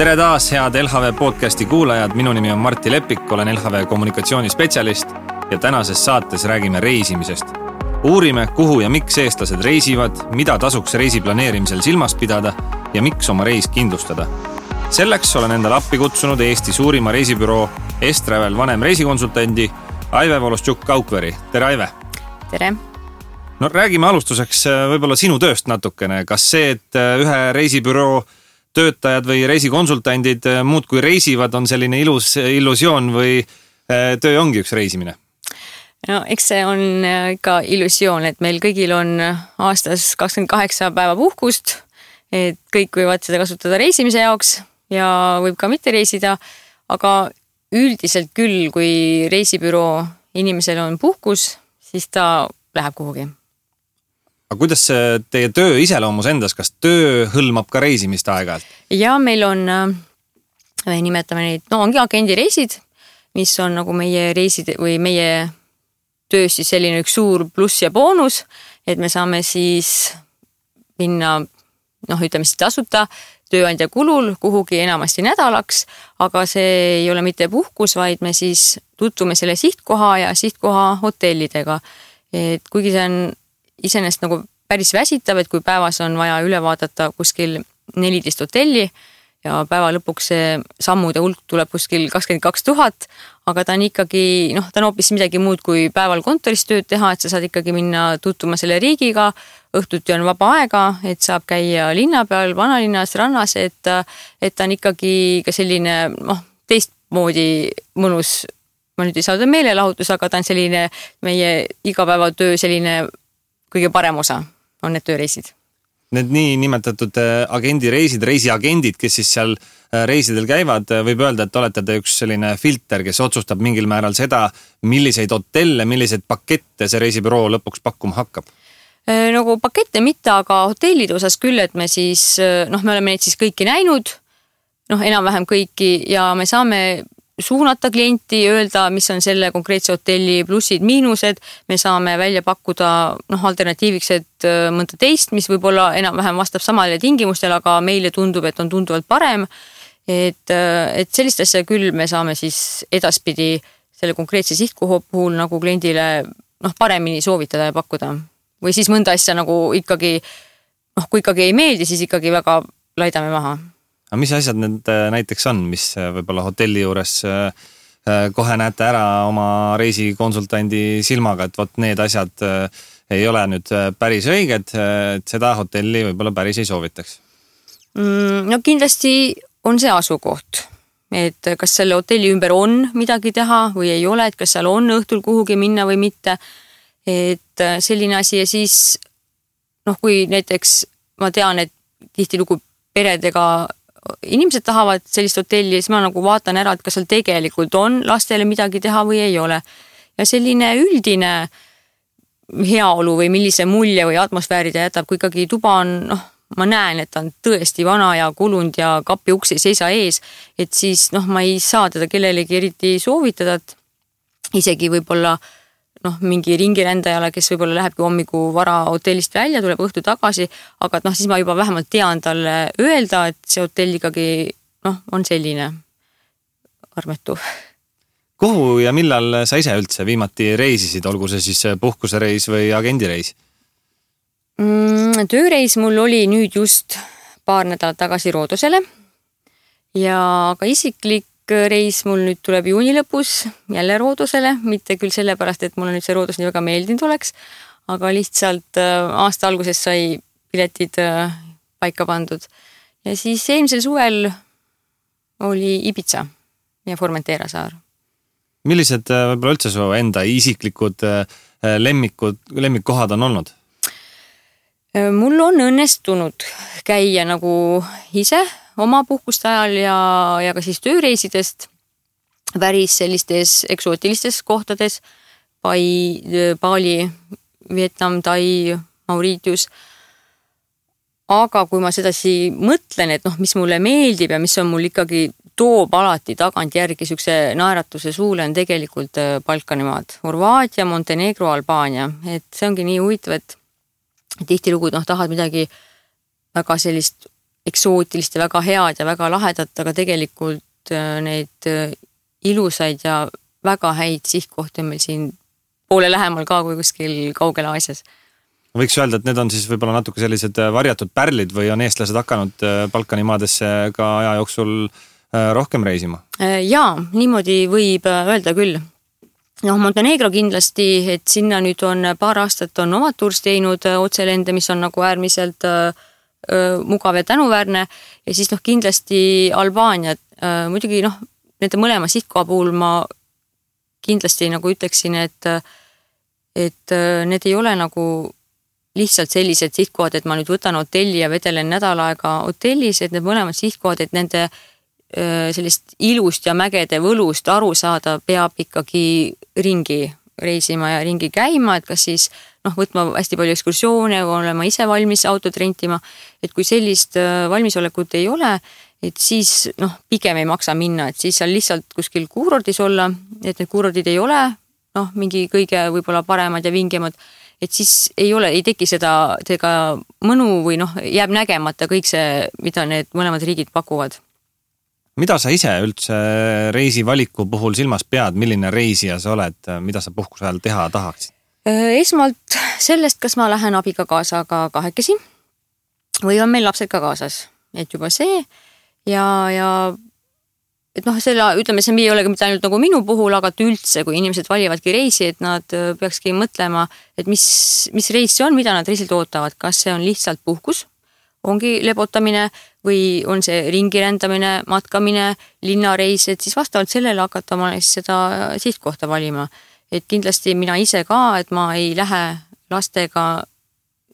Tere taas, head LHV podcasti kuulajad. Minu nimi on Martti Lepik, olen LHV kommunikatsioonispetsialist ja tänases saates räägime reisimisest. Uurime, kuhu ja miks eestlased reisivad, mida tasuks reisi planeerimisel silmas pidada ja miks oma reis kindlustada. Selleks olen endale appi kutsunud Eesti suurima reisibüroo Estravel vanem reisikonsultandi Aive Volostjuk-Kaukveri. Tere, Aive! Tere! No räägime alustuseks võib-olla sinu tööst natukene. Kas see, et ühe reisibüroo töötajad või reisikonsultandid muud kui reisivad, on selline ilus illusioon või töö ongi üks reisimine? No eks see on ikka illusioon, et meil kõigil on aastas 28 päeva puhkust, et kõik võivad seda kasutada reisimise jaoks ja võib ka mitte reisida, aga üldiselt küll, kui reisibüroo inimesel on puhkus, siis ta läheb kuhugi. Aga kuidas teie töö iseloomus endas, kas töö hõlmab ka reisimist aeg-ajalt? Ja meil on, nimetame neid, ongi agendireisid, mis on nagu meie reisid või meie töös siis selline üks suur pluss ja boonus, et me saame siis minna, ütleme siis tasuta tööandja kulul kuhugi enamasti nädalaks, aga see ei ole mitte puhkus, vaid me siis tutvume selle sihtkoha ja sihtkoha hotellidega. Et kuigi see on iseenesest nagu päris väsitav, et kui päevas on vaja üle vaadata kuskil 14 hotelli ja päeva lõpuks see sammude hulk tuleb kuskil 22 000, aga ta on ikkagi, ta on hoopis midagi muud kui päeval kontoris tööd teha, et sa saad ikkagi minna tutvuma selle riigiga, õhtuti on vaba aega, et saab käia linna peal, vanalinnas, rannas, et ta on ikkagi ka selline teistmoodi mõnus, ma nüüd ei saa meelelahutus, aga ta on selline meie igapäevatöö selline kõige parem osa on need tööreisid. Need nii nimetatud agendireisid, reisiagendid, kes siis seal reisidel käivad, võib öelda, et olete te üks selline filter, kes otsustab mingil määral seda, milliseid hotelle, milliseid pakette see reisibüroo lõpuks pakkuma hakkab? Nagu pakette mitte, aga hotellide osas küll, et me siis, me oleme neid siis kõiki näinud, enam-vähem kõiki ja me saame suunata klienti, öelda, mis on selle konkreetse hotelli plussid, miinused, me saame välja pakkuda alternatiiviks, et mõnda teist, mis võib-olla enam-vähem vastab samale tingimustele, aga meile tundub, et on tunduvalt parem, et sellist asja küll me saame siis edaspidi selle konkreetse sihtkoha puhul nagu kliendile paremini soovitada ja pakkuda. Või siis mõnda asja nagu ikkagi, kui ikkagi ei meeldi, siis ikkagi väga laidame maha. Aga mis asjad need näiteks on, mis võib-olla hotelli juures kohe näete ära oma reisikonsultandi silmaga, et vot need asjad ei ole nüüd päris õiged, et seda hotelli võib-olla päris ei soovitaks? Kindlasti on see asukoht, et kas selle hotelli ümber on midagi teha või ei ole, et kas seal on õhtul kuhugi minna või mitte, et selline asi ja siis, kui näiteks ma tean, et tihtilugu peredega inimesed tahavad sellist hotelli, siis ma nagu vaatan ära, et kas seal tegelikult on lastele midagi teha või ei ole. Ja selline üldine heaolu või millise mulje või atmosfääri ta jätab, kui ikkagi tuba on, ma näen, et ta on tõesti vana ja kulunud ja kapi uks ei seisa ees, et siis ma ei saa teda kellelegi eriti soovitada, et isegi võib-olla mingi ringirändajale, kes võib-olla lähebki hommiku vara hotellist välja, tuleb õhtu tagasi, aga siis ma juba vähemalt tean talle öelda, et see hotell ikkagi on selline armetu. Kuhu ja millal sa ise üldse viimati reisisid, olgu see siis puhkusereis või agendireis? Tööreis mul oli nüüd just paar nädalat tagasi Roodosele ja ka isiklik reis mul nüüd tuleb juuni lõpus jälle Roodosele, mitte küll sellepärast, et mulle nüüd see Roodos nii väga meeldinud oleks, aga lihtsalt aasta alguses sai piletid paika pandud. Ja siis eelmisel suvel oli Ibiza ja Formentera saar. Millised võib-olla üldse su enda isiklikud lemmikkohad on olnud? Mul on õnnestunud käia nagu ise oma puhkuste ajal ja ka siis tööreisidest päris sellistes eksootilistes kohtades, Bali, Vietnam, Tai, Mauritius. Aga kui ma sedasi mõtlen, et mis mulle meeldib ja mis on mul ikkagi toob alati tagant järgi sükse naeratuse suule, on tegelikult Balkanimaad, Horvaatia, Montenegro, Albaania. Et see ongi nii huvitav, et tihtilugu tahad midagi väga sellist eksootilist ja väga head ja väga lahedat, aga tegelikult neid ilusaid ja väga häid sihtkohti on meil siin poole lähemal ka kui kuskil kaugel Aasias. Võiks öelda, et need on siis võib-olla natuke sellised varjatud pärlid või on eestlased hakanud Balkani maadesse ka aja jooksul rohkem reisima? Jaa, niimoodi võib öelda küll. Montenegro kindlasti, et sinna nüüd on paar aastat on omad tuurs teinud otselende, mis on nagu äärmiselt mugav ja tänuväärne ja siis kindlasti Albaania. Muidugi nende mõlema sihtkoha puhul ma kindlasti nagu ütleksin, et need ei ole nagu lihtsalt sellised sihtkohad, et ma nüüd võtan hotelli ja vedelen nädal aega hotellis, et need mõlemad sihtkohad, et nende sellist ilust ja mägede võlust aru saada, peab ikkagi ringi reisima ja ringi käima, et kas siis võtma hästi palju ekskursioone või olema ise valmis autot rentima, et kui sellist valmisolekut ei ole, et siis pigem ei maksa minna, et siis seal lihtsalt kuskil kuurordis olla, et need kuurordid ei ole mingi kõige võib-olla paremad ja vingemad, et siis ei teki seda mõnu või jääb nägemata kõik see, mida need mõlemad riigid pakuvad. Mida sa ise üldse reisi valiku puhul silmas pead, milline reisija sa oled, mida sa puhkuse ajal teha tahaksid? Esmalt sellest, kas ma lähen abiga kaasaga kahekesi või on meil lapsed ka kaasas, et juba see ja et selle, ütleme, see ei ole mitte ainult nagu minu puhul, aga üldse, kui inimesed valivadki reisi, et nad peakski mõtlema, et mis reis see on, mida nad reisilt ootavad, kas see on lihtsalt puhkus, ongi lebotamine või on see ringirändamine, matkamine, linnareis, et siis vastavalt sellele hakata ma seda sihtkohta valima. Et kindlasti mina ise ka, et ma ei lähe lastega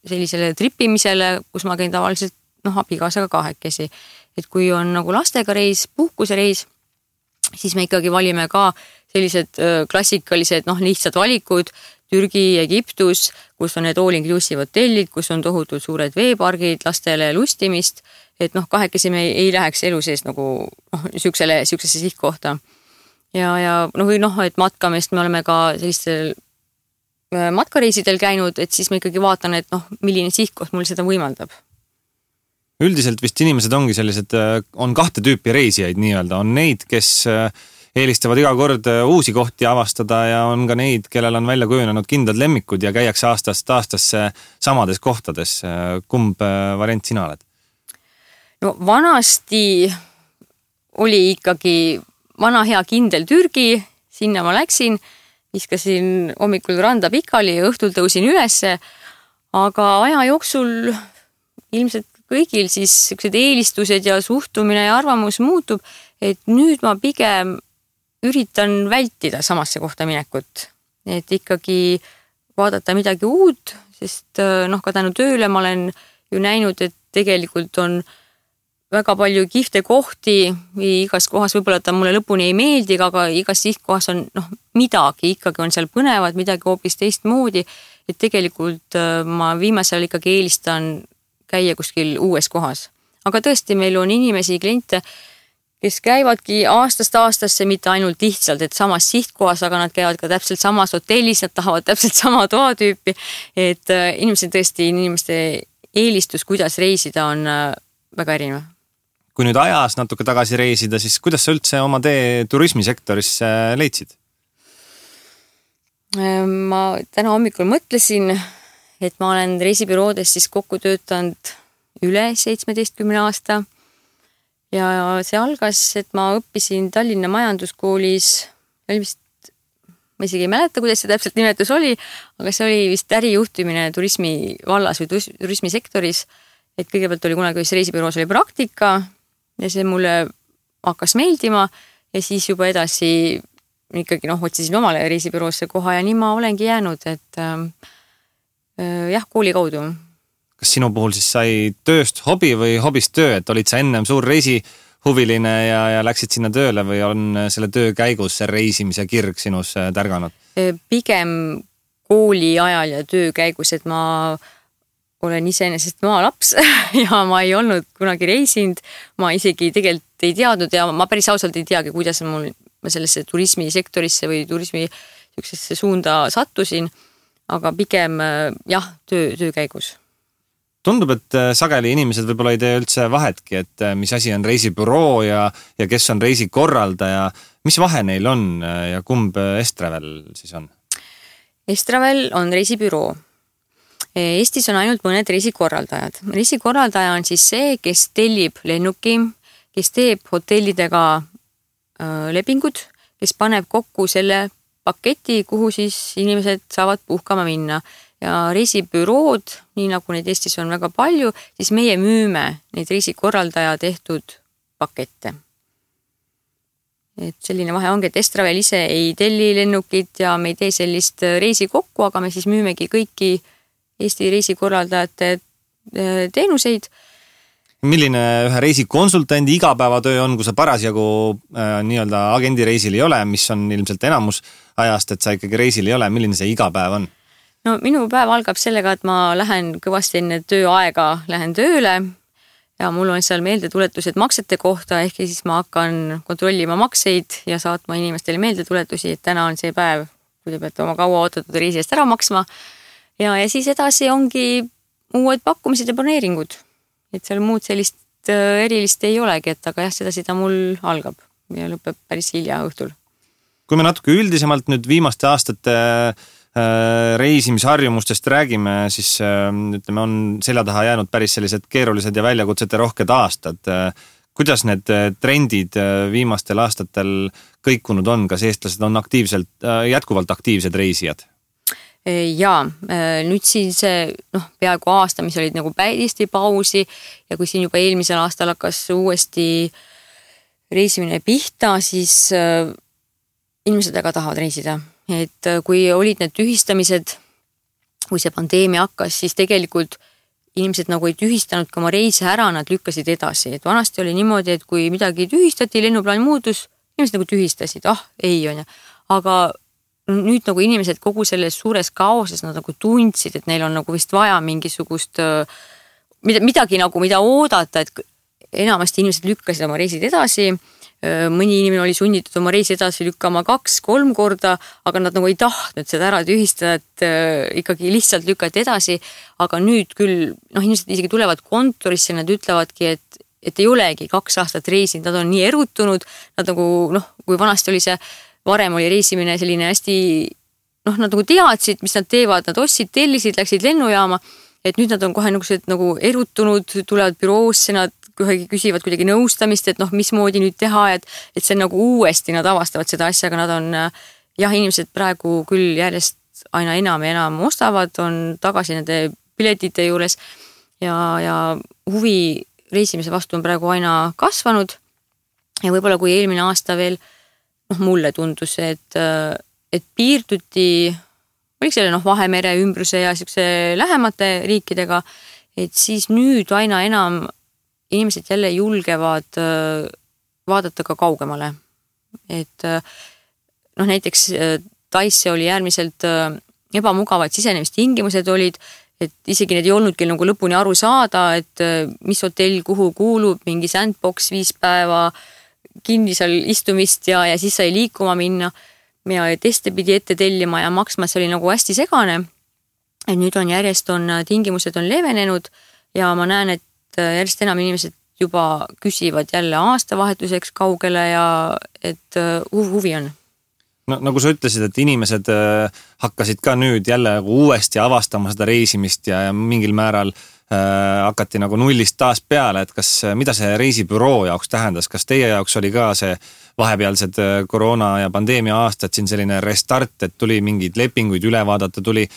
sellisele tripimisele, kus ma käin tavaliselt abikaasaga kahekesi. Et kui on nagu lastega reis, puhkusereis, siis me ikkagi valime ka sellised klassikalised lihtsad valikud, Türgi, Egiptus, kus on need all-inclusive hotellid, kus on tohutult suured veepargid, lastele lustimist, et kahekesi me ei läheks elu sees nagu siuksesse sihtkohta. Või et matkamist me oleme ka sellistel matkareisidel käinud, et siis ma ikkagi vaatan, et milline sihtkoht mul seda võimaldab. Üldiselt vist inimesed ongi sellised, on kahte tüüpi reisijaid nii-öelda, on neid, kes eelistavad iga kord uusi kohti avastada ja on ka neid, kellel on välja kujunenud kindlad lemmikud ja käiakse aastast aastasse samades kohtades. Kumb variant sina oled? Vanasti oli ikkagi vana hea kindel Türgi, sinna ma läksin, viskasin hommikul randa pikali ja õhtul tõusin ülesse, aga aja jooksul ilmselt kõigil siis sellised eelistused ja suhtumine ja arvamus muutub, et nüüd ma pigem üritan vältida samasse kohta minekut, et ikkagi vaadata midagi uut, sest ka tänu tööle ma olen ju näinud, et tegelikult on väga palju kihvte kohti või igas kohas võib-olla ta mulle lõpuni ei meeldi, aga igas sihtkohas on midagi, ikkagi on seal põnevad, midagi hoopis teistmoodi, et tegelikult ma viimasel ikkagi eelistan käia kuskil uues kohas. Aga tõesti, meil on inimesi, kliente, kes käivadki aastast aastasse mitte ainult lihtsalt, et samas sihtkohas, aga nad käivad ka täpselt samas hotellis, nad tahavad täpselt sama toatüüpi, et inimeste eelistus, kuidas reisida, on väga erinev. Kui nüüd ajas natuke tagasi reisida, siis kuidas sa üldse oma tee turismisektorisse leidsid? Ma täna hommikul mõtlesin, et ma olen reisibüroodes siis kokku töötanud üle 17 aasta ja see algas, et ma õppisin Tallinna majanduskoolis, ma isegi ei mäleta, kuidas see täpselt nimetus oli, aga see oli vist ärijuhtimine turismi vallas või turismisektoris, et kõigepealt oli kunagi reisibüroos oli praktika ja see mulle hakkas meeldima ja siis juba edasi ikkagi otsisin omale reisibüroosse koha ja nii ma olengi jäänud, et kooli kaudu. Kas sinu puhul siis sai tööst hobi või hobist töö, et olid sa ennem suur reisihuviline ja läksid sinna tööle või on selle töö käigus see reisimise kirg sinus tärganud? Pigem kooli ajal ja töö käigus, et ma olen iseenesest maalaps ja ma ei olnud kunagi reisinud, ma isegi tegelikult ei teadnud ja ma päris ausalt ei teagi, kuidas ma sellesse turismisektorisse või turismi suunda sattusin, aga pigem töö käigus. tundub, et sageli inimesed võib-olla ei tee üldse vahetki, et mis asi on reisibüroo ja kes on reisikorraldaja. Mis vahe neil on ja kumb Estravel siis on? Estravel on reisibüroo. Eestis on ainult mõned reisikorraldajad. Reisikorraldaja on siis see, kes tellib lennuki, kes teeb hotellidega lepingud, kes paneb kokku selle paketi, kuhu siis inimesed saavad puhkama minna. Ja reisibürood, nii nagu neid Eestis on väga palju, siis meie müüme neid reisikorraldaja tehtud pakette. Et selline vahe ongi, et Estravel ise ei telli lennukit ja me ei tee sellist reisi kokku, aga me siis müümegi kõiki Eesti reisikorraldajate teenuseid. Milline ühe reisikonsultandi igapäevatöö on, kui sa parasjagu nii-öelda agendireisil ei ole, mis on ilmselt enamus ajast, et sa ikkagi reisil ei ole, milline see igapäev on? No minu päev algab sellega, et ma lähen kõvasti enne tööaega, lähen tööle ja mul on seal meeldetuletused maksete kohta, ehk siis ma hakkan kontrollima makseid ja saatma inimestele meeldetuletusi, et täna on see päev, kui te peate oma kaua ootatud reisi eest ära maksma. Ja siis edasi ongi uued pakkumised ja planeeringud. Et seal muud sellist erilist ei olegi, et aga jah, seda mul algab ja lõpeb päris hilja õhtul. Kui me natuke üldisemalt nüüd viimaste aastate reisimisharjumustest räägime, siis ütleme, on selja taha jäänud päris sellised keerulised ja väljakutsete rohked aastad. Kuidas need trendid viimastel aastatel kõikunud on? Kas eestlased on jätkuvalt aktiivsed reisijad? Jaa, nüüd siin see peaaegu aasta, mis olid nagu päristi pausi ja kui siin juba eelmisel aastal hakkas uuesti reisimine pihta, siis inimesed väga tahavad reisida. Et kui olid need tühistamised, kui see pandeemia hakkas, siis tegelikult inimesed nagu ei tühistanud ka oma reise ära, nad lükkasid edasi. Et vanasti oli niimoodi, et kui midagi tühistati, lennuplaan muutus, inimesed nagu tühistasid, ei on. Aga nüüd nagu inimesed kogu selles suures kaoses nad nagu tundsid, et neil on nagu vist vaja mingisugust midagi nagu, mida oodata, et enamasti inimesed lükkasid oma reisid edasi. Mõni inimene oli sunnitud oma reisi edasi lükkama 2-3 korda, aga nad nagu ei tahtnud seda ära tühistada, et ikkagi lihtsalt lükati edasi. Aga nüüd küll, inimesed isegi tulevad kontorisse, nad ütlevadki, et ei olegi 2 aastat reisinud, nad on nii erutunud, nad nagu, kui vanasti oli see, varem oli reisimine selline hästi, nad nagu teadsid, mis nad teevad, nad ostsid, tellisid, läksid lennujaama, et nüüd nad on kohe nagu erutunud, tulevad büroosse, nad küsivad kuidagi nõustamist, et mismoodi nüüd teha, et see on nagu uuesti, nad avastavad seda asja, aga nad on, inimesed praegu küll järjest aina enam ja enam ostavad, on tagasi nende piletite juures ja huvi reisimise vastu on praegu aina kasvanud ja võib-olla kui eelmine aasta veel, mulle tundus, et piirduti, oli selle Vahemere ümbruse ja lähemate riikidega, et siis nüüd aina enam inimesed jälle julgevad vaadata ka kaugemale. Et näiteks Taisse oli äärmiselt ebamugavad sisenemistingimused olid, et isegi need ei olnudki nagu lõpuni aru saada, et mis hotell kuhu kuulub, mingi sandbox 5 päeva kinni seal istumist ja siis sai liikuma minna ja teste pidi ette tellima ja maksma, see oli nagu hästi segane. Et nüüd on järjest tingimused on leevenenud ja ma näen, et järjest enam inimesed juba küsivad jälle aastavahetuseks kaugele ja et huvi on. No, nagu sa ütlesid, et inimesed hakkasid ka nüüd jälle uuesti avastama seda reisimist ja mingil määral hakati nagu nullist taas peale, et mida see reisibüroo jaoks tähendas, kas teie jaoks oli ka see vahepealsed koroona ja pandeemia aastad siin selline restart, et tuli mingeid lepinguid üle vaadata, tuli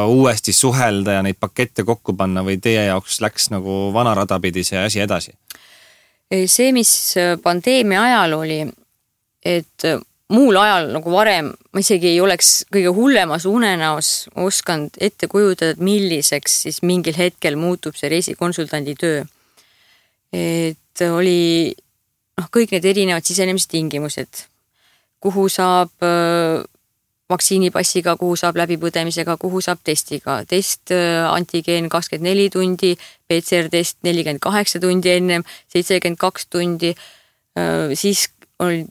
uuesti suhelda ja neid pakette kokku panna või teie jaoks läks nagu vana radapidi see asi edasi? See, mis pandeemia ajal oli, et muul ajal nagu varem ma isegi ei oleks kõige hullemas unenäos osanud ette kujutada, et milliseks siis mingil hetkel muutub see reisikonsultandi töö. Et oli kõik need erinevad sisenemistingimused, kuhu saab vaktsiinipassiga, kuhu saab läbipõdemisega, kuhu saab testiga. Test antigeen 24 tundi, PCR-test 48 tundi ennem, 72 tundi. Siis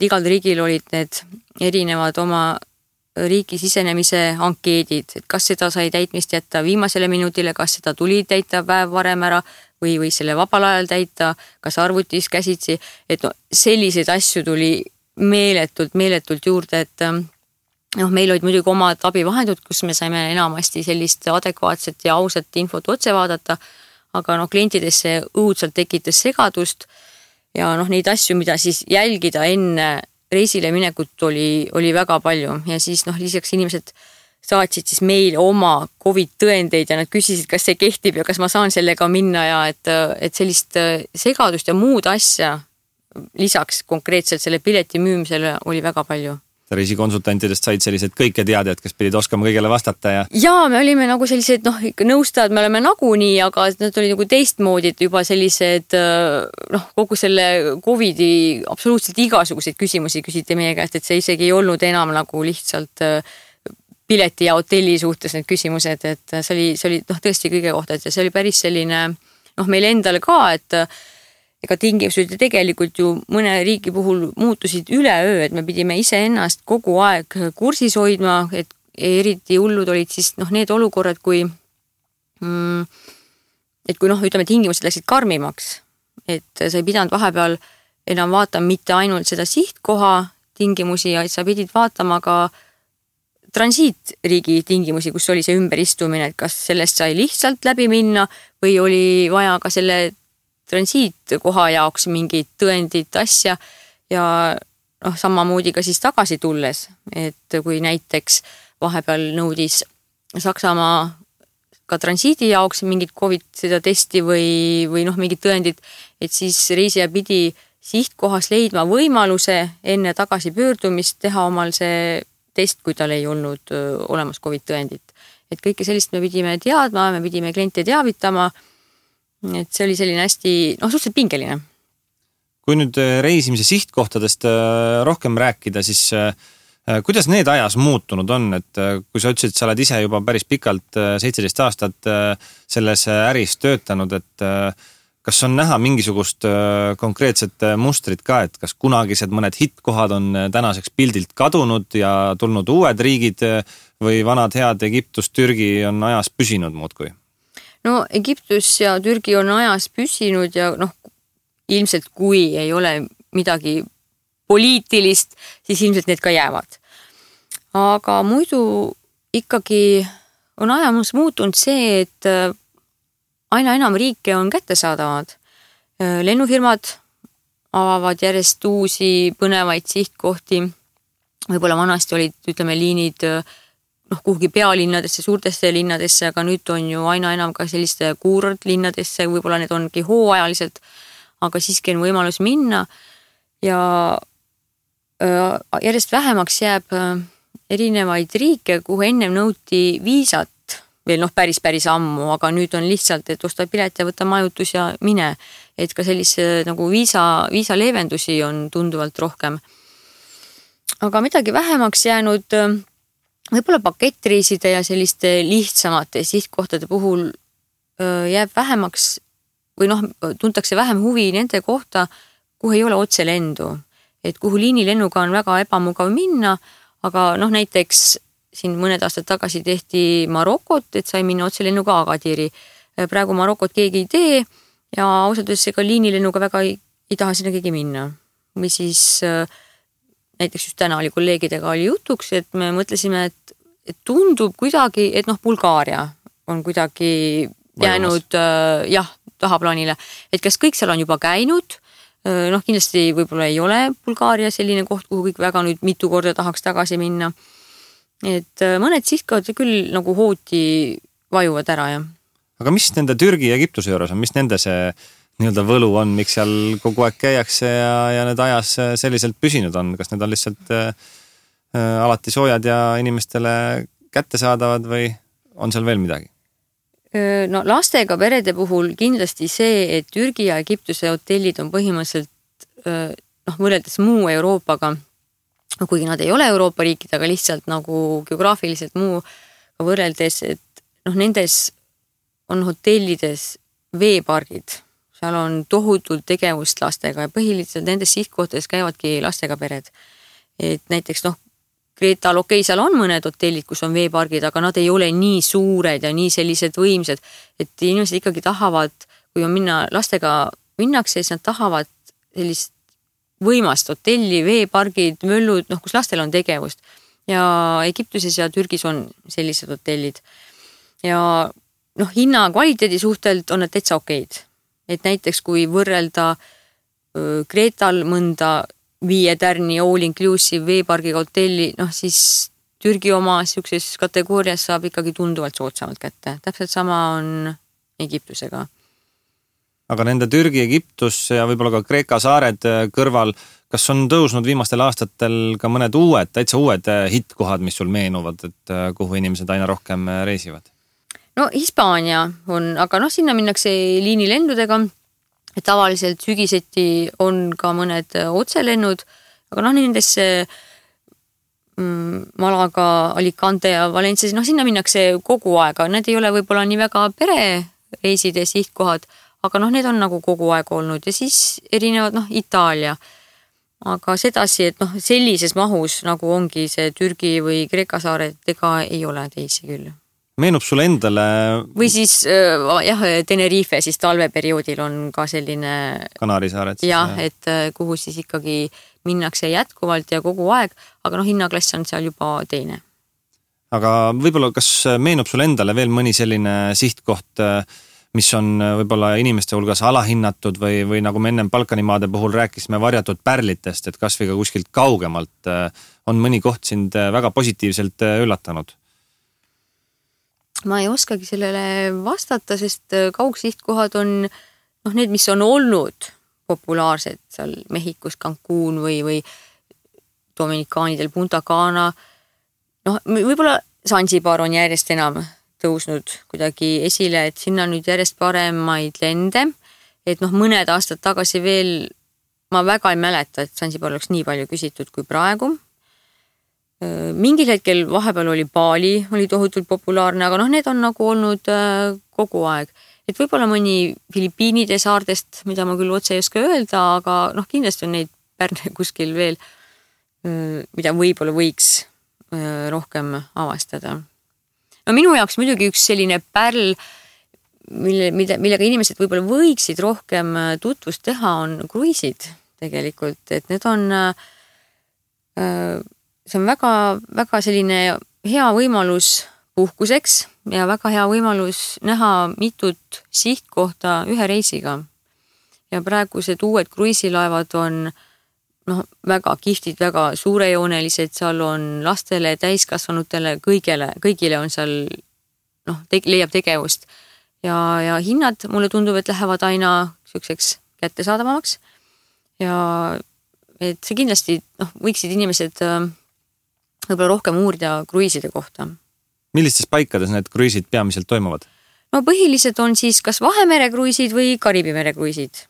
igal riigil olid need erinevad oma riiki sisenemise ankeedid, et kas seda sai täitmist jätta viimasele minutile, kas seda tuli täita päev varem ära või selle vabal ajal täita, kas arvutis käsitsi, et no, selliseid asju tuli meeletult juurde, et meil olid muidugi omad abivahendud, kus me saime enamasti sellist adekvaatset ja ausat infot otse vaadata, aga klientidesse õudselt tekitas segadust ja neid asju, mida siis jälgida enne reisile minekut oli väga palju ja siis lisaks inimesed saatsid siis meile oma COVID tõendeid ja nad küsisid, kas see kehtib ja kas ma saan sellega minna ja et sellist segadust ja muud asja lisaks konkreetselt selle pileti müümisele oli väga palju. Reisikonsultantidest said sellised kõiketeadjad, kes pidid oskama kõigele vastata ja... Jaa, me olime nagu sellised, nõustajad me oleme nagunii, aga nad olid nagu teistmoodi, et juba sellised, kogu selle COVIDi absoluutselt igasuguseid küsimusi küsiti meie käest, et see isegi ei olnud enam nagu lihtsalt pileti ja hotelli suhtes need küsimused, et see oli tõesti kõige kohta, et see oli päris selline, meil endale ka, et ega tingimused tegelikult ju mõne riigi puhul muutusid üleöö, et me pidime iseennast kogu aeg kursis hoidma, et eriti hullud olid siis need olukorrad, kui ütleme, tingimused läksid karmimaks, et sa ei pidanud vahepeal enam vaatama mitte ainult seda sihtkoha tingimusi, vaid sa pidid vaatama ka transiitriigi tingimusi, kus oli see ümberistumine, et kas sellest sai lihtsalt läbi minna või oli vaja ka selle transiitkoha jaoks mingid tõendid asja ja samamoodi ka siis tagasi tulles, et kui näiteks vahepeal nõudis Saksamaa ka transiidi jaoks mingid COVID seda testi või mingid tõendid, et siis reisija pidi sihtkohas leidma võimaluse enne tagasi pöördumist teha omal see test, kui tal ei olnud olemas COVID tõendit. Et kõike sellist me pidime teadma, me pidime kliente teavitama, et see oli selline hästi, suhteliselt pingeline. Kui nüüd reisimise sihtkohtadest rohkem rääkida, siis kuidas need ajas muutunud on, et kui sa ütlesid, sa oled ise juba päris pikalt 17 aastat selles äris töötanud, et kas on näha mingisugust konkreetset mustrit ka, et kas kunagised mõned hittkohad on tänaseks pildilt kadunud ja tulnud uued riigid või vanad head Egiptus, Türgi on ajas püsinud muudkui? No Egiptus ja Türgi on ajas püsinud ja ilmselt kui ei ole midagi poliitilist, siis ilmselt need ka jäävad. Aga muidu ikkagi on ajamus muutunud see, et aina enam riike on kättesaadavad. Lennufirmad avavad järjest uusi põnevaid sihtkohti. Võib-olla vanasti olid, ütleme, liinid kuhugi pealinnadesse, suurtesse linnadesse, aga nüüd on ju aina enam ka selliste kuurortlinnadesse, võib-olla need ongi hooajaliselt, aga siiski on võimalus minna ja järjest vähemaks jääb erinevaid riike, kuhu ennem nõuti viisat, veel päris ammu, aga nüüd on lihtsalt, et osta pilet ja võta majutus ja mine, et ka sellise nagu viisa leevendusi on tunduvalt rohkem. Aga midagi vähemaks jäänud võib-olla pakettreiside ja selliste lihtsamate sihtkohtade puhul jääb vähemaks või tuntakse vähem huvi nende kohta, kuhu ei ole otse lendu. Et kuhu liinilennuga on väga ebamugav minna, aga näiteks siin mõned aastad tagasi tehti Marokot, et sai minna otse lennuga Agadiri. Praegu Marokot keegi ei tee ja ausalt öeldes ega liinilennuga väga ei taha sinna keegi minna. Või siis näiteks just täna oli kolleegidega oli jutuks, et me mõtlesime, et tundub kuidagi, et Bulgaaria on kuidagi jäänud tahaplaanile. Et kas kõik seal on juba käinud? Kindlasti võib-olla ei ole Bulgaaria selline koht, kuhu kõik väga nüüd mitu korda tahaks tagasi minna. Et mõned sihtkohad küll nagu hooti vajuvad ära, jah. Aga mis nende Türgi ja Egiptuse juures on? Mis nende see nii-öelda võlu on, miks seal kogu aeg käiakse ja need ajas selliselt püsinud on? Kas need on lihtsalt alati soojad ja inimestele kättesaadavad või on seal veel midagi? Lastega perede puhul kindlasti see, et Türgi ja Egiptuse hotellid on põhimõtteliselt võrreldes muu Euroopaga, kuigi nad ei ole Euroopa riikid, aga lihtsalt nagu geograafiliselt muu võrreldes, et nendes on hotellides veepargid. Seal on tohutult tegevust lastega ja põhiliselt nendes sihtkohtades käivadki lastega pered. Et näiteks Kreetal, seal on mõned hotellid, kus on veepargid, aga nad ei ole nii suured ja nii sellised võimsad, et inimesed ikkagi tahavad, kui on lastega minnakse, siis nad tahavad sellist võimast hotelli, veepargid, möllud, kus lastel on tegevust. Ja Egiptuses ja Türgis on sellised hotellid. Ja hinna kvaliteedi suhtelt on nad täitsa okeid. Et näiteks kui võrrelda Kreetal mõnda 5 tärni all inclusive veepargiga hotelli, siis Türgi oma siukses kategoorias saab ikkagi tunduvalt soodsamalt kätte. Täpselt sama on Egiptusega. Aga nende Türgi, Egiptus ja võib-olla ka Kreeka saared kõrval, kas on tõusnud viimastel aastatel ka mõned täitsa uued hittkohad, mis sul meenuvad, et kuhu inimesed aina rohkem reisivad? No Hispaania on, aga sinna minnakse liinilendudega. Et tavaliselt sügiseti on ka mõned otselennud, aga nendesse Malaga, Alicante ja Valencia, sinna minnakse kogu aega. Need ei ole võib-olla nii väga perereiside sihtkohad, aga need on nagu kogu aeg olnud ja siis erinevad Itaalia. Aga sedasi, et sellises mahus nagu ongi see Türgi või Kreeka saared, ega ei ole teisi küll. Meenub sulle endale... Või siis Tenerife siis talveperioodil on ka selline... Kanaarisaared. Jah, et kuhu siis ikkagi minnakse jätkuvalt ja kogu aeg, aga hinnaklass on seal juba teine. Aga võib-olla kas meenub sulle endale veel mõni selline sihtkoht, mis on võib-olla inimeste hulgas alahinnatud või nagu me ennem Balkanimaade puhul rääkisime varjatud pärlitest, et kas või ka kuskilt kaugemalt on mõni koht sind väga positiivselt üllatanud? Ma ei oskagi sellele vastata, sest kaugsihtkohad on need, mis on olnud populaarsed seal Mehhikos, Cancún või Dominikaanidel Punta Cana. Võib-olla Zanzibar on järjest enam tõusnud kuidagi esile, et sinna nüüd järjest paremaid lende, et mõned aastad tagasi veel ma väga ei mäleta, et Zanzibar oleks nii palju küsitud kui praegu. Mingil hetkel vahepeal oli Bali, oli tohutult populaarne, aga need on nagu olnud kogu aeg. Et võib-olla mõni Filipiinide saardest, mida ma küll otse ei oska öelda, aga kindlasti on neid pärne kuskil veel, mida võib-olla võiks rohkem avastada. Minu jaoks muidugi üks selline pärl, millega inimesed võib-olla võiksid rohkem tutvust teha, on kruiisid tegelikult, et need on... See on väga, väga selline hea võimalus puhkuseks ja väga hea võimalus näha mitut sihtkohta ühe reisiga. Ja praegused uued kruiisilaevad on väga kihvtid, väga suurejoonelised, seal on lastele, täiskasvanutele, kõigile on seal leiab tegevust. Ja hinnad mulle tundub, et lähevad aina selliseks kättesaadavamaks. Ja et see kindlasti võiksid inimesed võib-olla rohkem uurida kruiiside kohta. Millistes paikades need kruiisid peamiselt toimuvad? Põhilised on siis kas Vahemere kruiisid või Kariibi mere kruiisid.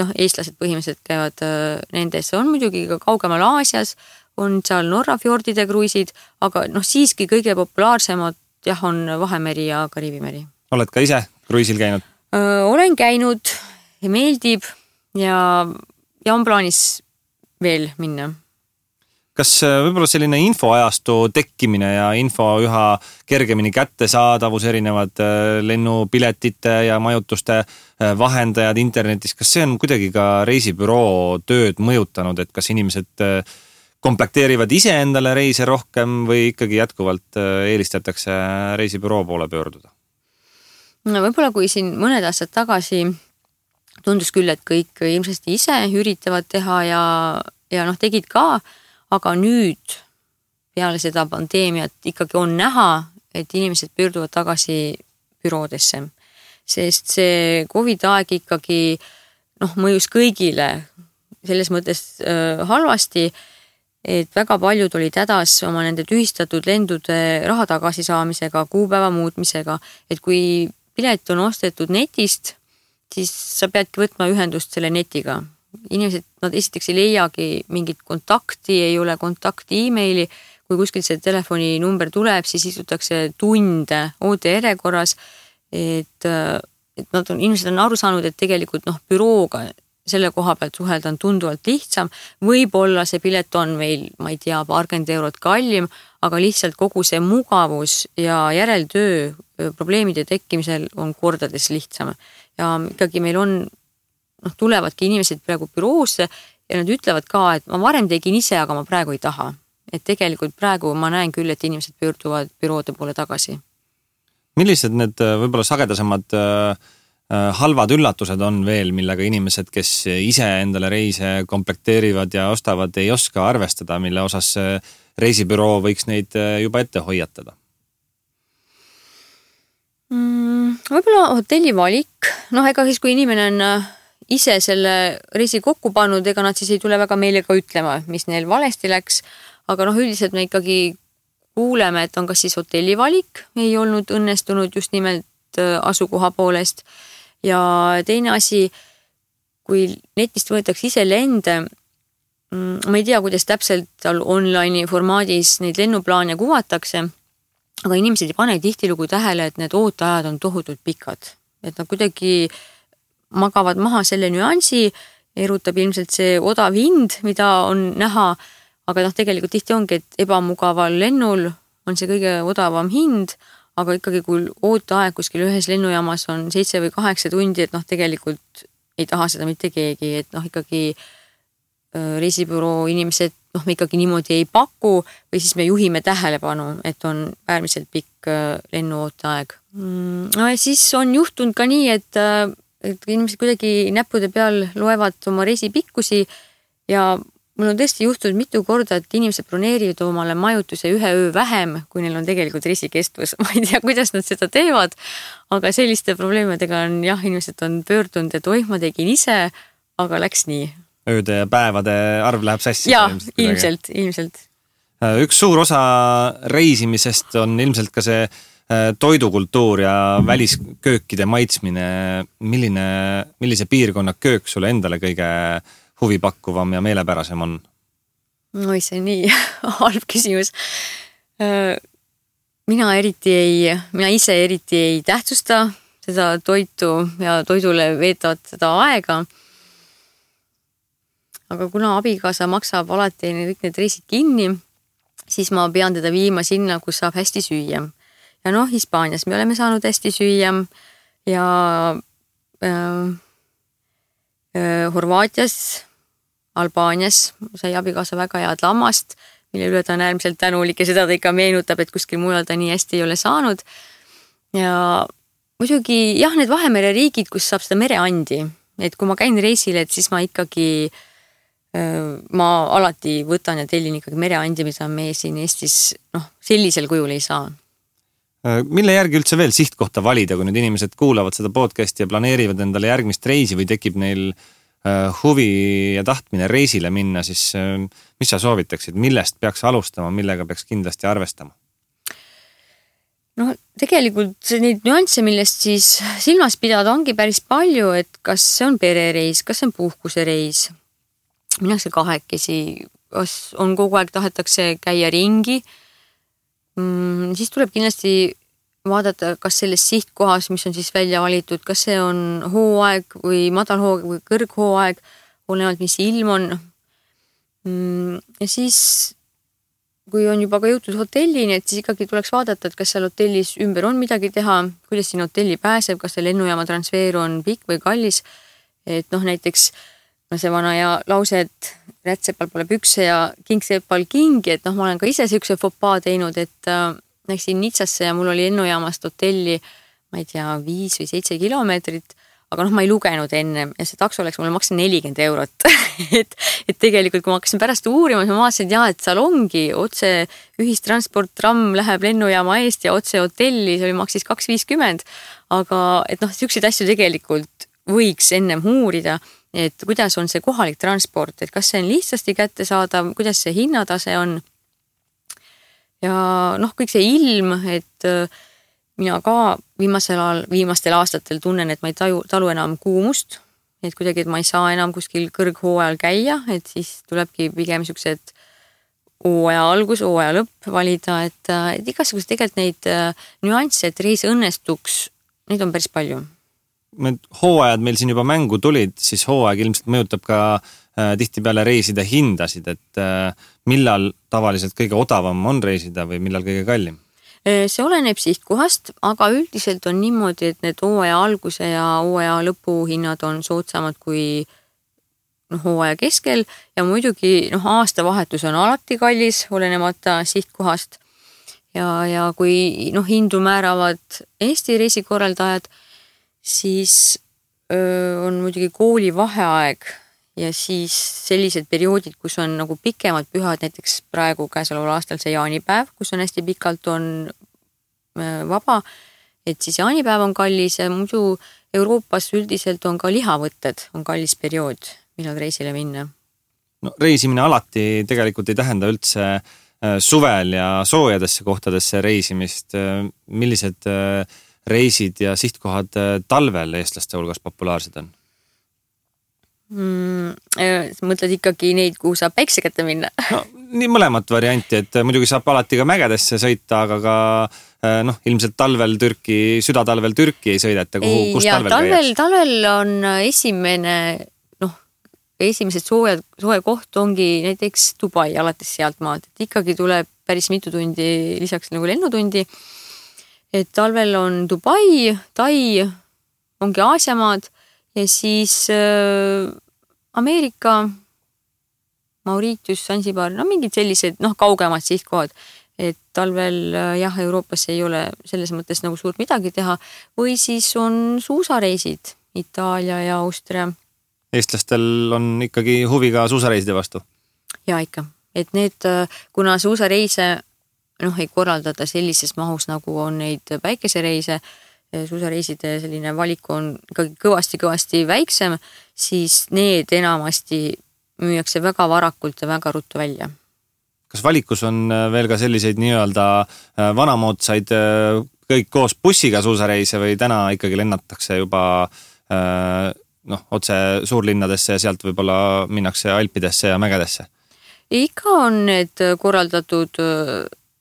Eestlased põhimõtteliselt käivad nendes. On muidugi ka kaugemal Aasias, on seal Norra fjordide kruiisid, aga siiski kõige populaarsemad on Vahemeri ja Kariibi meri. Oled ka ise kruiisil käinud? Olen käinud ja meeldib ja on plaanis veel minna. Kas võib-olla selline infoajastu tekkimine ja info üha kergemini kättesaadavus, erinevad lennupiletite ja majutuste vahendajad internetis, kas see on kuidagi ka reisibüroo tööd mõjutanud, et kas inimesed komplekteerivad ise endale reise rohkem või ikkagi jätkuvalt eelistatakse reisibüroo poole pöörduda? Võib-olla kui siin mõned aastad tagasi tundus küll, et kõik ilmselt ise üritavad teha ja tegid ka, aga nüüd peale seda pandeemiat ikkagi on näha, et inimesed pöörduvad tagasi büroodesse. Sest see COVID-aeg ikkagi mõjus kõigile selles mõttes halvasti, et väga paljud olid hädas oma nende tühistatud lendude raha tagasi saamisega, kuupäeva muutmisega, et kui pilet on ostetud netist, siis sa peadki võtma ühendust selle netiga. Inimesed, nad esiteks ei leiagi mingit kontakti, ei ole kontakti e-maili, kui kuskilt see telefoninumber tuleb, siis istutakse tunde OTR-korras, et inimesed on aru saanud, et tegelikult bürooga selle koha pealt suhelda on tunduvalt lihtsam. Võib-olla see pilet on meil, ma ei tea, paarkümmend eurot kallim, aga lihtsalt kogu see mugavus ja järeltöö probleemide tekkimisel on kordades lihtsam. Ja ikkagi meil on, tulevadki inimesed praegu büroosse ja nad ütlevad ka, et ma varem tegin ise, aga ma praegu ei taha. Et tegelikult praegu ma näen küll, et inimesed pöörduvad büroode poole tagasi. Millised need võib-olla sagedasemad halvad üllatused on veel, millega inimesed, kes ise endale reise komplekteerivad ja ostavad, ei oska arvestada, mille osas reisibüroo võiks neid juba ette hoiatada? Võib-olla hotelli valik. Ega siis, kui inimene on ise selle reisi kokku pannud, ega nad siis ei tule väga meile ka ütlema, mis neil valesti läks. Aga üldiselt me ikkagi kuuleme, et on kas siis hotelli valik, ei olnud õnnestunud just nimelt asukoha poolest. Ja teine asi, kui netist võetakse ise lende, ma ei tea, kuidas täpselt online formaadis neid lennuplaane kuvatakse, aga inimesed ei pane tihtilugu tähele, et need ooteajad on tohutult pikad. Et nad kuidagi magavad maha selle nüansi, erutab ilmselt see odav hind, mida on näha, aga tegelikult tihti ongi, et ebamugaval lennul on see kõige odavam hind, aga ikkagi kui ooteaeg kuskil ühes lennujaamas on 7 või 8 tundi, et tegelikult ei taha seda mitte keegi, et ikkagi reisibüroo inimesed me ikkagi niimoodi ei paku või siis me juhime tähelepanu, et on äärmiselt pikk lennuooteaeg. Ja siis on juhtunud ka nii, et inimesed kuidagi näppude peal loevad oma reisi pikkusi ja mul on tõesti juhtunud mitu korda, et inimesed broneerivad omale majutuse 1 öö vähem, kui neil on tegelikult reisikestvus. Ma ei tea, kuidas nad seda teevad, aga selliste probleemidega on inimesed on pöördunud, et ma tegin ise, aga läks nii. Ööde ja päevade arv läheb sassi. Jaa, ilmselt. Üks suur osa reisimisest on ilmselt ka see toidukultuur ja välisköökide maitsmine. Millise piirkonna köök sulle endale kõige huvipakkuvam ja meelepärasem on? See on nii halb küsimus. Mina ise eriti ei tähtsusta seda toitu ja toidule veetavad seda aega. Aga kuna abikaasa maksab alati kõik need reisid kinni, siis ma pean teda viima sinna, kus saab hästi süüa. Ja Hispaanias me oleme saanud hästi süüa ja Horvaatias, Albaanias sai abikaasa väga head lammast, mille üle ta on äärmiselt tänulik ja seda ta ikka meenutab, et kuskil mujal ta nii hästi ei ole saanud. Ja muidugi need Vahemere riigid, kus saab seda mereandi, et kui ma käin reisile, et siis ma ikkagi ma alati võtan ja tellin ikkagi mereandi, mida me siin Eestis sellisel kujul ei saa. Mille järgi üldse veel sihtkohta valida, kui nüüd inimesed kuulavad seda podcasti ja planeerivad endale järgmist reisi või tekib neil huvi ja tahtmine reisile minna, siis mis sa soovitaksid, millest peaks alustama, millega peaks kindlasti arvestama? Tegelikult neid nüansse, millest siis silmas pidada ongi päris palju, et kas see on perereis, kas see on puhkusereis, minnakse kahekesi, kas on kogu aeg tahetakse käia ringi, siis tuleb kindlasti vaadata, kas selles sihtkohas, mis on siis välja valitud, kas see on hooaeg või madalhooaeg või kõrghooaeg, olenevalt mis ilm on. Ja siis, kui on juba ka jõutud hotellini, et siis ikkagi tuleks vaadata, et kas seal hotellis ümber on midagi teha, kuidas siin hotelli pääseb, kas see lennujaama transfer on pikk või kallis. Et näiteks see vana ja lause, et rätsepal pole pükse ja kingsepal kingi, et ma olen ka ise siukse fopaa teinud, et läksin Nitsasse ja mul oli lennujaamast hotelli, ma ei tea, 5 või 7 kilomeetrit, aga ma ei lugenud enne ja see takso läks mulle maksa 40 eurot. et tegelikult, kui ma hakkasin pärast uurima, siis ma vaatasin, et seal ongi otse ühistransport, tramm läheb lennujaama eest ja otse hotelli, see oli maksis 2,50, aga siukseid asju tegelikult võiks ennem uurida, et kuidas on see kohalik transport, et kas see on lihtsasti kättesaadav, kuidas see hinnatase on. Ja kõik see ilm, et mina ka viimastel aastatel tunnen, et ma ei talu enam kuumust, et kuidagi, et ma ei saa enam kuskil kõrghooajal käia, et siis tulebki pigem siuksed hooaja algus, hooaja lõpp valida, et igasugused tegelikult neid nüansse, et reis õnnestuks, neid on päris palju. hooajad meil siin juba mängu tulid, siis hooaeg ilmselt mõjutab ka tihtipeale reiside hindasid, et millal tavaliselt kõige odavam on reisida või millal kõige kallim? See oleneb sihtkohast, aga üldiselt on niimoodi, et need hooaja alguse ja hooaja lõpu hinnad on soodsamad kui hooaja keskel ja muidugi aastavahetus on alati kallis, olenemata sihtkohast. Ja kui hindu määravad Eesti reisikorraldajad, siis on muidugi kooli vaheaeg ja siis sellised perioodid, kus on nagu pikemad pühad, näiteks praegu käesoleval aastal see jaanipäev, kus on hästi pikalt on vaba, et siis jaanipäev on kallis ja muidu Euroopas üldiselt on ka lihavõtted, on kallis periood, millal reisile minna. No, reisimine alati tegelikult ei tähenda üldse suvel ja soojadesse kohtadesse reisimist. Millised reisid ja sihtkohad talvel eestlaste hulgas populaarsed on? Mõtled ikkagi neid, kuhu saab päikse kätte minna? No, nii mõlemat varianti, et muidugi saab alati ka mägedesse sõita, aga ka ilmselt südatalvel Türki ei sõideta, kus talvel käiaks? Talvel on esimesed soe koht ongi näiteks Dubai alates sealt maalt, et ikkagi tuleb päris mitu tundi lisaks nagu lennutundi. Et talvel on Dubai, Tai, ongi Aasiamaad ja siis Ameerika, Mauritius, Zanzibar, mingid sellised kaugemad sihtkohad. Et talvel Euroopas ei ole selles mõttes nagu suurt midagi teha või siis on suusareisid Itaalia ja Austria. Eestlastel on ikkagi huvi ka suusareiside vastu? Ja ikka, et need, kuna suusareise ei korraldada sellises mahus, nagu on neid päikesereise, suusareiside selline valik on ikkagi kõvasti väiksem, siis need enamasti müüakse väga varakult ja väga ruttu välja. Kas valikus on veel ka selliseid nii-öelda vanamoodsaid kõik koos bussiga suusareise või täna ikkagi lennatakse juba otse suurlinnadesse ja sealt võib-olla minnakse Alpidesse ja mägedesse? Ikka on need korraldatud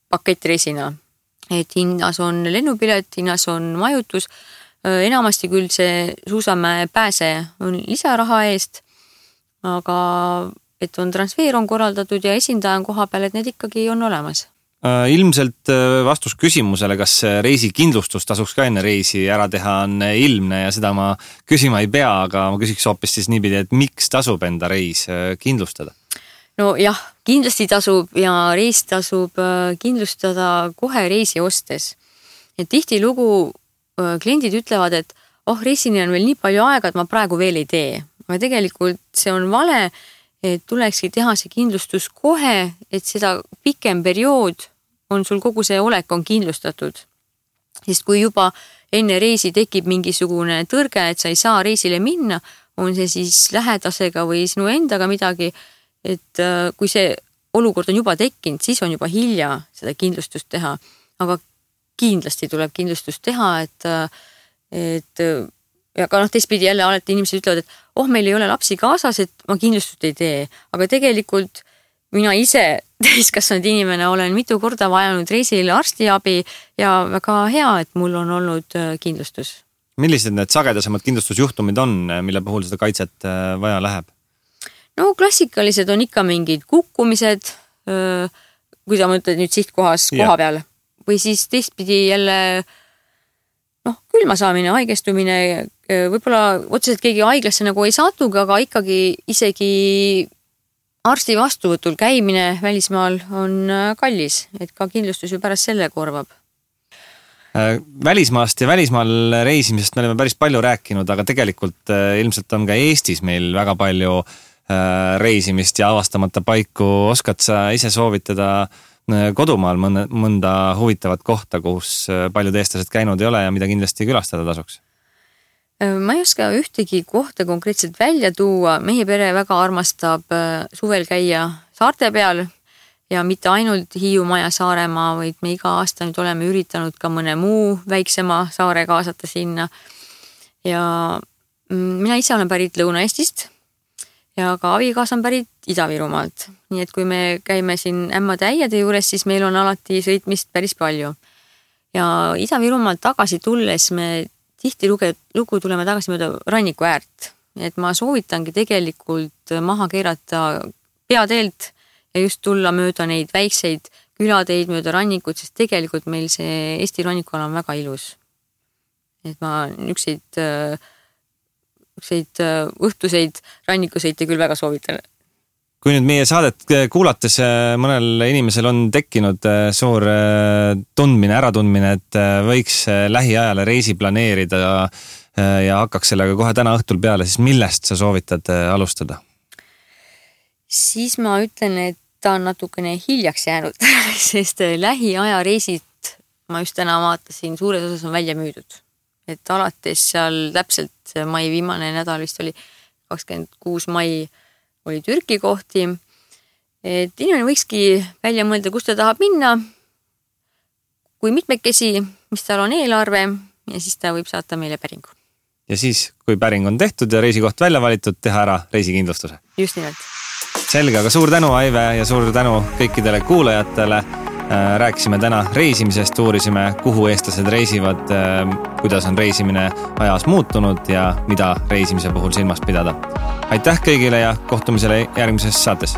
pakettreisina, et hinnas on lennupilet, hinnas on majutus, enamasti küll see suusamäe pääse on lisaraha eest, aga et on transfer on korraldatud ja esindaja on koha peal, et need ikkagi on olemas. Ilmselt vastus küsimusele, kas reisikindlustus tasuks ka enne reisi ära teha on ilmne ja seda ma küsima ei pea, aga ma küsiks hoopis siis niipidi, et miks tasub enda reis kindlustada? No jah, kindlasti tasub ja reis tasub kindlustada kohe reisi ostes. Et tihti lugu kliendid ütlevad, et reisini on veel nii palju aega, et ma praegu veel ei tee. Aga tegelikult see on vale, et tulekski teha see kindlustus kohe, et seda pikem periood on sul kogu see olek on kindlustatud. Sest kui juba enne reisi tekib mingisugune tõrge, et sa ei saa reisile minna, on see siis lähedasega või sinu endaga midagi, et kui see olukord on juba tekkinud, siis on juba hilja seda kindlustust teha. Aga kindlasti tuleb kindlustust teha, et ja ka teistpidi jälle alati inimesed ütlevad, et meil ei ole lapsi kaasas, et ma kindlustust ei tee. Aga tegelikult mina ise täiskasvanud inimene olen mitu korda vajanud reisil arstiabi ja väga hea, et mul on olnud kindlustus. Millised need sagedasemad kindlustusjuhtumid on, mille puhul seda kaitset vaja läheb? No klassikalised on ikka mingid kukkumised, kui sa mõtled nüüd sihtkohas koha peal. Või siis teistpidi jälle külma saamine, haigestumine, võib-olla otseselt keegi haiglasse nagu ei satugi, aga ikkagi isegi arsti vastuvõtul käimine välismaal on kallis, et ka kindlustus ju pärast selle korvab. Välismaast ja välismaal reisimisest me oleme päris palju rääkinud, aga tegelikult ilmselt on ka Eestis meil väga palju reisimist ja avastamata paiku. Oskad sa ise soovitada kodumaal mõnda huvitavat kohta, kus paljud eestlased käinud ei ole ja mida kindlasti külastada tasuks? Ma ei oska ühtegi kohta konkreetselt välja tuua. Meie pere väga armastab suvel käia saarte peal ja mitte ainult Hiiumaa ja Saaremaa, vaid me iga aasta nüüd oleme üritanud ka mõne muu väiksema saare kaasata sinna. Ja mina ise olen pärit Lõuna-Eestist ja ka abikaasa on pärit Ida-Virumaalt. Nii et kui me käime siin ämmade äiade juures, siis meil on alati sõitmist päris palju. Ja Ida-Virumaalt tagasi tulles me tihtilugu tuleme tagasi mööda ranniku äärt, et ma soovitangi tegelikult maha keerata peateelt ja just tulla mööda neid väikseid külateid mööda rannikut, sest tegelikult meil see Eesti rannikuala on väga ilus. Et ma ükseid õhtuseid rannikusõite küll väga soovitan. Kui nüüd meie saadet kuulates mõnel inimesel on tekkinud suur äratundmine, et võiks lähiajale reisi planeerida ja hakkaks sellega kohe täna õhtul peale, siis millest sa soovitad alustada? Siis ma ütlen, et ta on natukene hiljaks jäänud, sest lähiaja reisid, ma just täna vaatasin, suures osas on välja müüdud. Et alates seal täpselt mai viimane nädal vist oli 26 mai oli Türki kohti, et inimene võikski välja mõelda, kus ta tahab minna, kui mitmekesi, mis tal on eelarve ja siis ta võib saata meile päringu. Ja siis, kui päring on tehtud ja reisikoht välja valitud, teha ära reisikindlustuse. Just nimelt. Selge, aga suur tänu, Aive, ja suur tänu kõikidele kuulajatele. Rääkisime täna reisimisest, uurisime, kuhu eestlased reisivad, kuidas on reisimine ajas muutunud ja mida reisimise puhul silmas pidada. Aitäh kõigile ja kohtumisele järgmises saates.